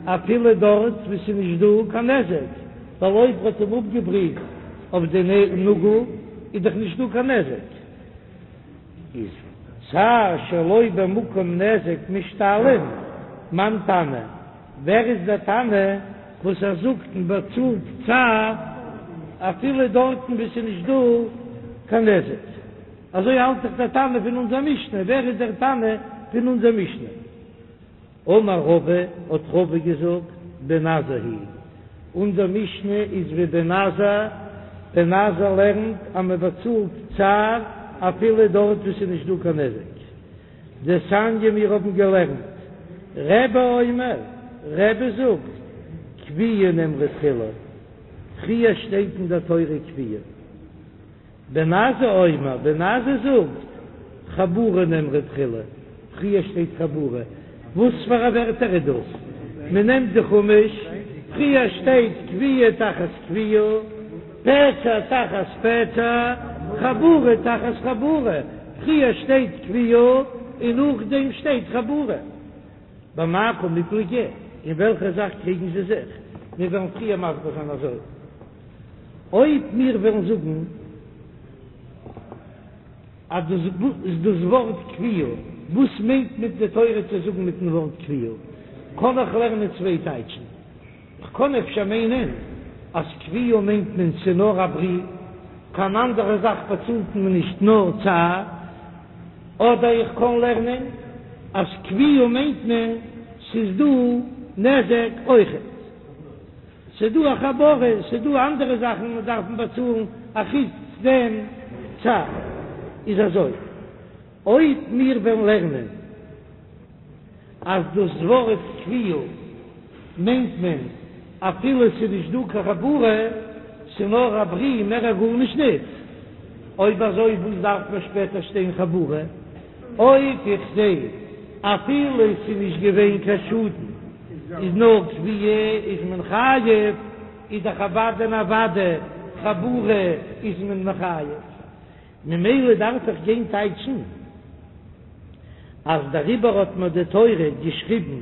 Speaker 1: אפילו דארט וואו ס'איז נישט דא קיין נזק, ווייל אויב ער האט אים אפגעבריט אויף די נאגל איז דאך נישט דא קיין נזק. איז צער שלא במקום נזק משתלם, מאן תנא, ווער איז דער תנא וואס ער זאגט מען באצאלט צער אפילו דארטן וואו ס'איז נישט דא קיין נזק? אזוי האלט דאך דער תנא פון אונזער משנה, ווער איז דער תנא פון אונזער משנה? אמר רבא, האט רבא געזאגט, בן עזאי היא, אונזער משנה איז ווי בן עזאי, בן עזאי לערנט אז מען באצאלט צער אפילו דארט וואו ס'איז נישט דא קיין נזק. דתניא מיר האבן געלערנט, רבי אומר, רבי זאגט, כויה נאמרה תחילה, פריער שטייט אין דער תורה כויה. בן עזאי אומר, בן עזאי זאגט, חבורה נאמרה תחילה, פריער שטייט חבורה, וואס פאר א ווערטער איז דאס? מען נעמט די חומש, פריער שטייט כויה תחת כויה, פצע תחת פצע, חבורה תחת חבורה, פריער שטייט כויה און נאכדעם שטייט חבורה. במאי קמיפלגי? אין וועלכע זאך קריגן זיי זיך? מיר וועלן פריער מסביר זיין אזוי. אויב מיר וועלן זאגן אז דאס איז דאס ווארט כויה, וואס מיינט מיט די תורה צו זאגן מיטן ווארט כויה? קען איך לערנען צוויי טייטשן. כ'קען אפשר מיינען אז כויה מיינט מען ס'נאר א ברי, קיין אנדערע זאך באצאלט מען נישט נאר צער. אדער איך קען לערנען אז כויה מיינט מען ס'איז דא נזק אויכעט. ס'איז דא א חבורה, ס'איז דא אנדערע זאכן וואס דארף מען באצאלן אחוץ דעם צער. איז אזוי, אויב מיר וועלן לערנען אז דאס ווארט כויה מיינט מען אפילו ס'איז נישט דא קיין חבורה, ס'איז נאר א ברי, מער א גארנישט ניט, אויב אזוי וואס דארף מען שפעטער שטיין חבורה? אויב איך זע אפילו ס'איז נישט געווען קיין שאדן. איז נאר כויה איז מען חייב, איז דאך אוודאי און אוודאי חבורה איז מען מחייב, ממילא דארף איך גיין טייטשן אז דעריבער האט מיר די תורה געשריבן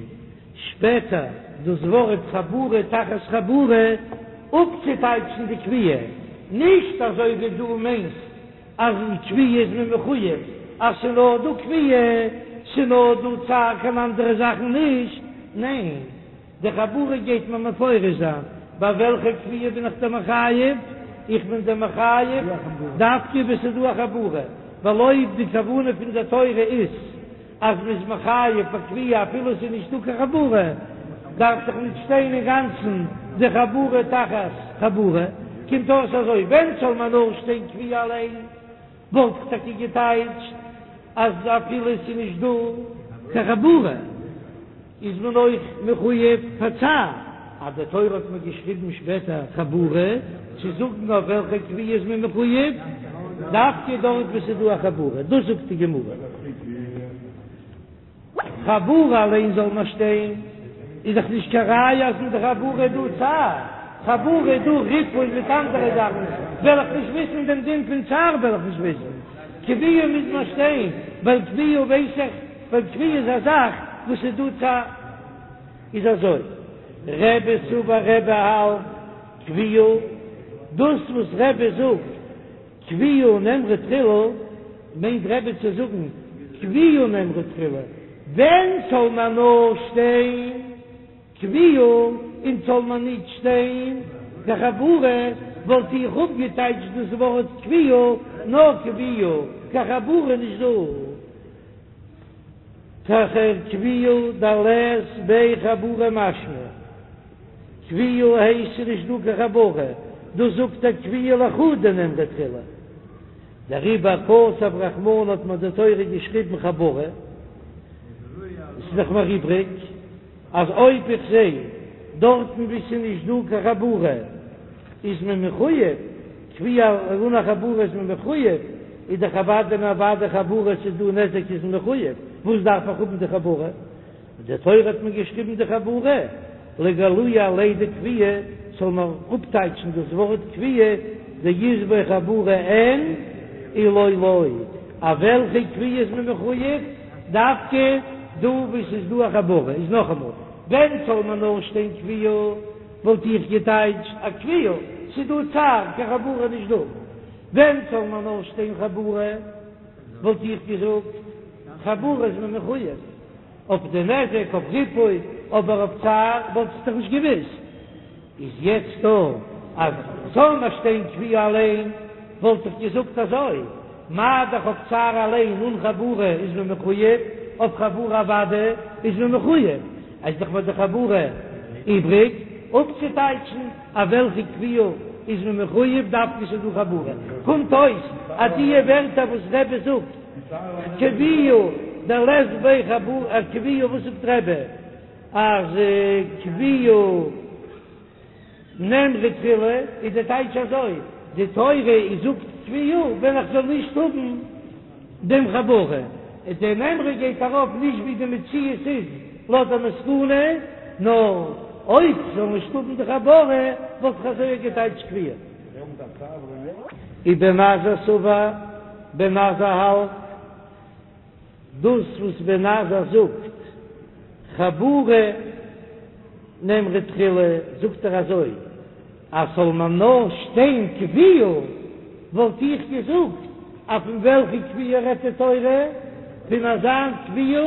Speaker 1: שפעטער דאס ווארט חבורה תחת חבורה אפצוטייטשן די כויה, נישט אזוי ווי דו מיינסט אז אין כויה איז מען מחויב אז ס'נאר דא כויה, ס'נאר דא צער קיין אנדערע זאכן נישט, ניין. די חבורה גייט מען מפרש זיין, ביי וועלכע כויה בין איך דיר מחייב? איך בין דיר מחייב דווקא וואו ס'איז דא א חבורה, ווייל אויב די כוונה פון די תורה איז אז מ'איז מחייב ביי כויה אפילו ס'איז נישטא קיין חבורה, דארף דאך נישט שטיין אינגאנצן די חבורה תחת חבורה. קומט אויס אזוי, ווען זאל מען נאר שטיין כויה אליין? וואלט איך טאקע געטייטשט אז אפילו עס איז נישט דא קיין חבורה איז מען אויך מחויב פאר צער, אז די תורה האט מיר געשריבן שפעטער חבורה צו זאגן אויף וועלכע כויה איז מען מחויב, דווקא דארט וואו ס'איז דא א חבורה, דאס זאגט די גמרא. חבורה אליין זאל מען שטיין, איז דאך נישט קיין ראיה אז אין די חבורה איז דא צער, חבורה איז דא ריפוי מיט אנדערע זאכן, וועל איך נישט וויסן דעם דין פון צער וועל איך נישט וויסן, כויה מוז מען שטיין, ווייל כויה ווייס איך, ווייל כויה איז א זאך וואס איז דא צער. איז אזוי, רבי סבר רבי האלט כויה, דאס וואס רבי זאגט כויה נאמרה תחילה, מיינט רבי צו זאגן כויה נאמרה תחילה, ווען זאל מען נאר שטיין כויה און זאל מען ניט שטיין קיין חבורה, וואלט איך אפגעטייטשט דאס ווארט כויה נאר כויה, קיין חבורה נישט דא. תחר כויה דלית ביה חבורה משמע. כויה הייסט ס'איז נישט דא קיין חבורה, דאס זאגט ער כויה לחודה נאמרה תחילה. דעריבער כתב רחמנא האט מיר די תורה געשריבן חבורה, עס איז דאך מיר איבריג אז אויב איך זע דארטן וואו ס'איז נישט דא קיין חבורה איז מען מחויב, כויה אן א חבורה איז מען מחויב, איז דאך אוודאי און אוודאי חבורה ס'איז דא נזק איז מען מחויב, וואס דארף איך האבן די חבורה? די תורה האט מיר געשריבן די חבורה לגלויי עליה דכויה, זאל מען אפטייטשן דאס ווארט כויה דאית ביה חבורה אין אי לא לא, אויף וועלכע כויה איז מען מחויב? דווקא דא וואו ס'איז דא א חבורה, איז נאכאמאל, ווען זאל מען נאר שטיין כויה וואלט איך געטייטשט א כויה, ס'איז דא צער, קיין חבורה נישט דא, ווען זאל מען נאר שטיין חבורה וואלט איך געזאגט חבורה איז מען מחויב. אויף די נזק, אויף ריפוי, אבער אויף צער וואלט איך דאך נישט געוויסט. איז יעצט דא אז זאל נאר שטיין כויה אליין, וואלט איך געזאגט אזוי, מה דאך אויף צער אליין אן חבורה איז מען מחויב, אויף חבורה אוודאי איז מען מחויב, איז דאך ביי די חבורה איבריג אפצוטייטשן אויף וועלכע כויה איז מען מחויב דווקא ס'איז דא חבורה, קומט אויס אז די ווערטער וואס רבי זאגט. כויה דלית ביה חבורה כויה וואס זאגט רבי אז כויה נאמרה תחילה איז די טייטש אזוי די תורה איז זאגט כויה ווען איך זאל נישט האבן דעם חבורה און די נאמרה גייט ארויף נישט ווי די מציאות איז לויט די מסקנא נאר אויב זאל נישט האבן די חבורה וואלט איך אזוי געטייטשט כויה. ובן עזאי סבר, בן עזאי האלט דאס וואס בן עזאי זאגט חבורה נאמרה תחילה, זאגט ער אזוי אז זאל מען נאר שטיין כויה וואלט איך געזאגט אז פון וועלכע כויה רעדט די תורה? פון אזא כויה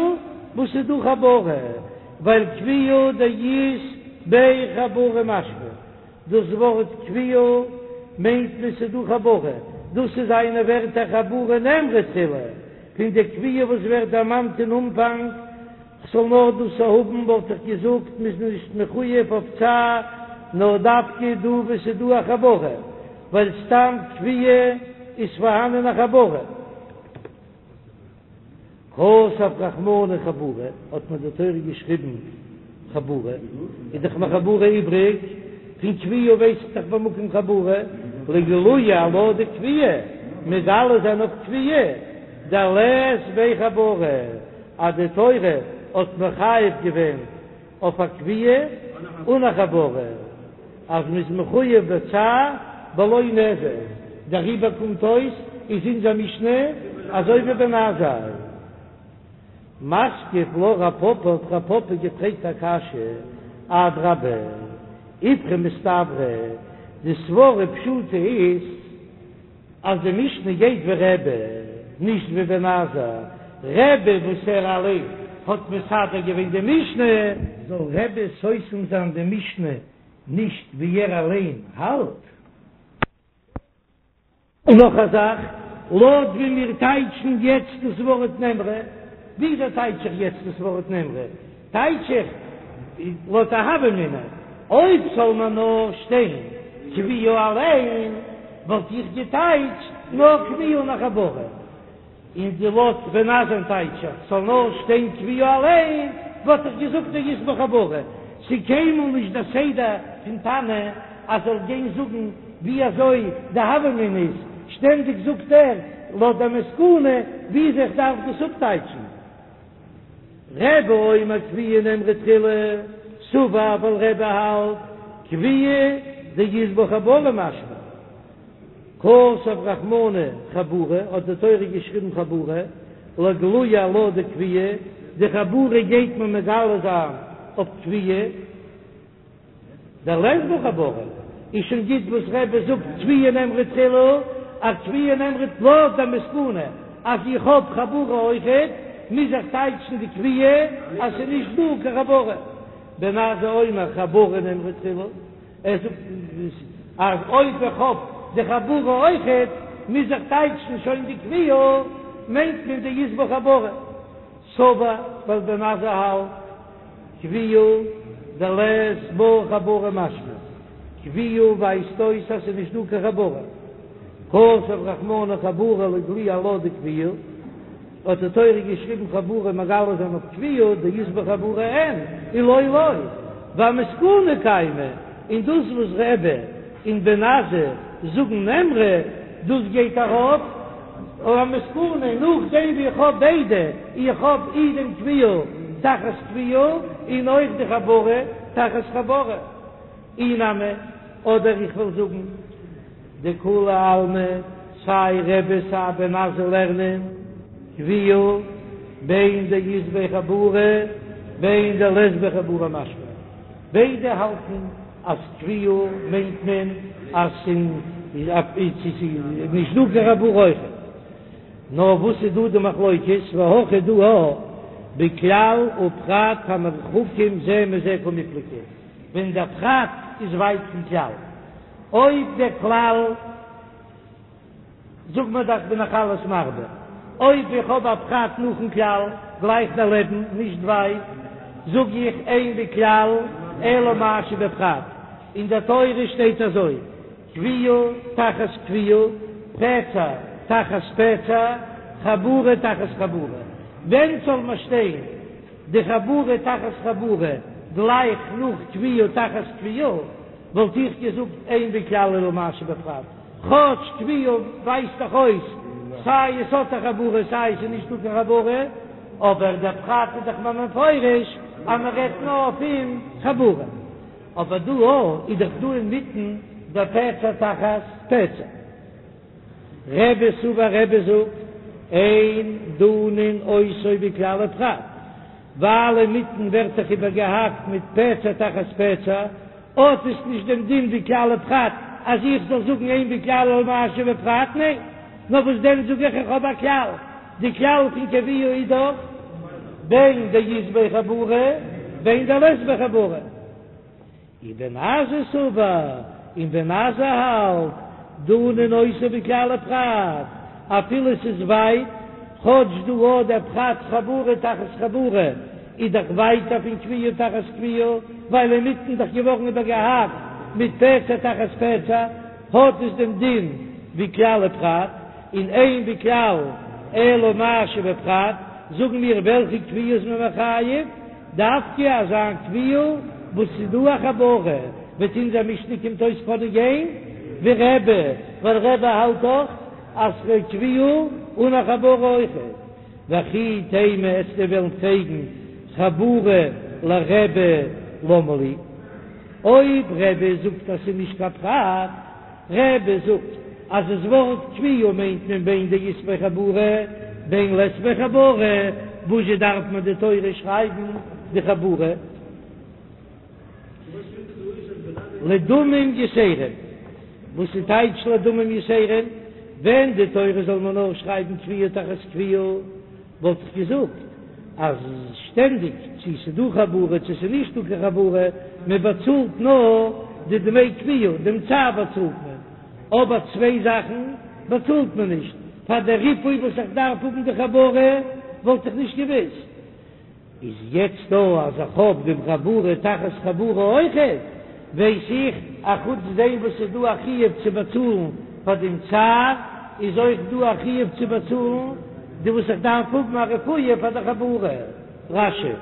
Speaker 1: וואס איז דא חבורה, ווייל כויה דאית ביה חבורה משמע. דאס ווארט כויה מיינט מען ס'איז דא חבורה, דאס איז זיינע ווערטער חבורה נאמרה תחילה, פון די כויה וואס ווערט דערמאנט אין אנפאנג, כ'זאל נאר דאס האבן וואלט איך געזאגט מ'איז נישט מחויב אויף צער נאר דווקא דא וואו ס'איז דא א חבורה, ווייל סתם כויה איז פארהאנען א חבורה. כתב רחמנא חבורה, האט מיר די תורה געשריבן חבורה, איז דאך מיר חבורה איבריג, פון כויה ווייס איך דאך במקום חבורה, לגלויי עלה דכויה, מגלה זיין אויף כויה, דלית ביה חבורה, אז די תורה האט מחייב געווען. אויף א כויה אן א חבורה, אז מ'איז מחויב בצער בלא נזק, דעריבער קומט אויס איז אונזער משנה אזוי ווי בן עזאי. מתקיף לה רב פפא האט רב פפא געפרעגט א קשיא, אדרבה, איפכא מסתברא, די סברה פשוטה איז אז די משנה גייט ווי רבי, נישט ווי בן עזאי, רבי וואס ער אליין האט מסדר געווען די משנה, זאל רבי סותם זיין די משנה נישט ווי ער אליין האלט? און נאך א זאך, לויט ווי מיר טייטשן יעצט דאס ווארט נאמרה, וויאזוי טייטש איך יעצט דאס ווארט נאמרה? טייטש איך לויט א הוה אמינא, אויב זאל מען נאר שטיין כויה אליין, וואלט איך געטייטשט נאר כויה אן א חבורה. און די לויט בן עזאי'ן טייטש איך ס'זאל נאר שטיין כויה אליין, וואלט איך געזאגט דאית בה חבורה. ס'איז קיינמאל נישט דער סדר פון תנא אז זאל גיין זאגן ווי אזוי די הוה אמינא איז, שטענדיג זאגט ער לויט די מסקנא וויאזוי איך דארף דאס אפטייטשן. רבי אומר כויה נאמרה תחילה, סבר ווייל רבי האלט כויה דאית בה חבורה משמע. כתב רחמנא חבורה, האט די תורה געשריבן חבורה, לגלויי עלה דכויה, די חבורה גייט מען מגלה זיין אויף כויה, דלית בה חבורה, איז שוין גוט וואס רבי זאגט כויה נאמרה תחילה, אז כויה נאמרה לויט די מסקנא אז איך האב חבורה אויכעט, מוז איך טייטשן די כויה אז ס'איז נישט דא קיין חבורה. בן עזאי אומר חבורה נאמרה תחילה. ער זאגט אז אויב איך האב די חבורה אויכעט מוז איך טייטשן שוין די כויה, מיינט מען דאית בה חבורה. סבר ווייל בן עזאי האלט כויה דלית בה חבורה משמע כויה ווייזט אויס אז ס'איז נישט דא קיין חבורה. כתב רחמנא חבורה לגלויי עלה דכויה. האט די תורה געשריבן חבורה מגלה זיין אויף כויה דאית בה חבורה אין ולא לא ואמסקנא קיימא, און דאס וואס רבי און בן עזאי זאגן נאמרה דאס גייט ארויף אויף א מסקנא נאכדעם ווי איך האב ביידע, איך האב אי דעם כויה תחת כויה און אויך די חבורה תחת חבורה. אי נמי, אדער איך וועל זאגן דכולי עלמא, סיי רבי סיי בן עזאי לערנען כויה בין דאית בה חבורה בין דלית בה חבורה משמע, ביידע האלטן אז כויה מיינט מען אז ס'איז נישט דא קיין חבורה אויכעט. נאר וואס איז דא די מחלוקת, והכא דא בכלל ופרט המרוחקים זה מזה קמיפלגי. ווען דער פרט איז ווייט פון כלל. אויב דער כלל, זאג מיר דאך בין איך אלעס מרבה, אויב איך האב א פרט נאכן כלל, גלייך דערלעבן, נישט ווייט, זאג איך אין בכלל אלא מה שבפרט. אין דער תורה שטייט אזוי, כויה תחת כויה, פצע תחת פצע, חבורה תחת חבורה. ווען זאל מען שטיין? די חבורה תחת חבורה גלייך נאך כויה תחת כויה, וואלט איך געזאגט אין בכלל אלא מה שבפרט, כאטש כויה ווייזט דאך אויס סיי עס האט א חבורה סיי עס איז נישטא קיין חבורה, אבער דער פרט איז דאך מיר מפרש אז מען רעדט נאר פון חבורה, אבער דא איז דאך דא אינמיטן דער פצע תחת פצע. רבי סבר רבי זאגט, אין דנין אותו בכלל ופרט, ווייל אינמיטן ווערט דאך איבערגעהאקט מיט פצע תחת פצע, האט עס נישט דעם דין ווי כלל ופרט אז איך זאל זאגן אין בכלל אלא מה שבפרט, ניין, נאר וואס דען זאג איך איך האב א כלל, די כלל פון כויה איז דאך בין דאית בה חבורה בין דלית בה חבורה. ובן עזאי סבר, און בן עזאי האלט, דנין אותו בכלל ופרט, אפילו ס'איז ווייט, כאטש דא האט דער פרט חבורה תחת חבורה, איז דאך ווייטער פון כויה תחת כויה, ווייל אינמיטן דאך געווארן איבערגעהאקט מיט פצע תחת פצע, האט עס דעם דין ווי כלל ופרט, און אין בכלל אלא מה שבפרט, זאגן מיר וועלכע כויה איז מען מחייב? דווקא אזא כויה וואס ס'איז דא א חבורה, וועט אונזער משנה קומט אויס קענען גיין ווי רבי, ווייל רבי האלט דאך אז כויה אן א חבורה אויכעט. וכי תימא וועסטו וועלן פרעגן חבורה. לרבי למה לי, אויב רבי זאגט אז ס'איז נישט קיין פרט, רבי זאגט אז דאס ווארט כויה מיינט מען בין דאית ביה חבורה בין לית ביה חבורה, וואזשע דארף מען די תורה שרייבן די חבורה? לדמים יתרים, וואס איז טייטש לדמים יתרים? ווען די תורה זאל מען נאר שרייבן כויה תחת כויה, וואלט איך געזאגט אז שטענדיג צו ס'איז דא חבורה צו ס'איז נישט דא קיין חבורה, מען באצאלט נאר די דמי כויה, דעם צער באצאלט מען, אבער צוויי זאכן באצאלט מען נישט, פאר די ריפוי וואס איך דארף האבן די חבורה וואלט איך נישט געוואוסט. איז יעצט דא אז איך האב דעם חבורה תחת חבורה אויכעט, ווייס איך א חוץ דעם וואס ס'איז דא א חיוב צו באצאלן פאר דעם צער, איז אויך דא א חיוב צו באצאלן די וואס איך דארף האבן א רפואה פאר די חבורה. רש"י.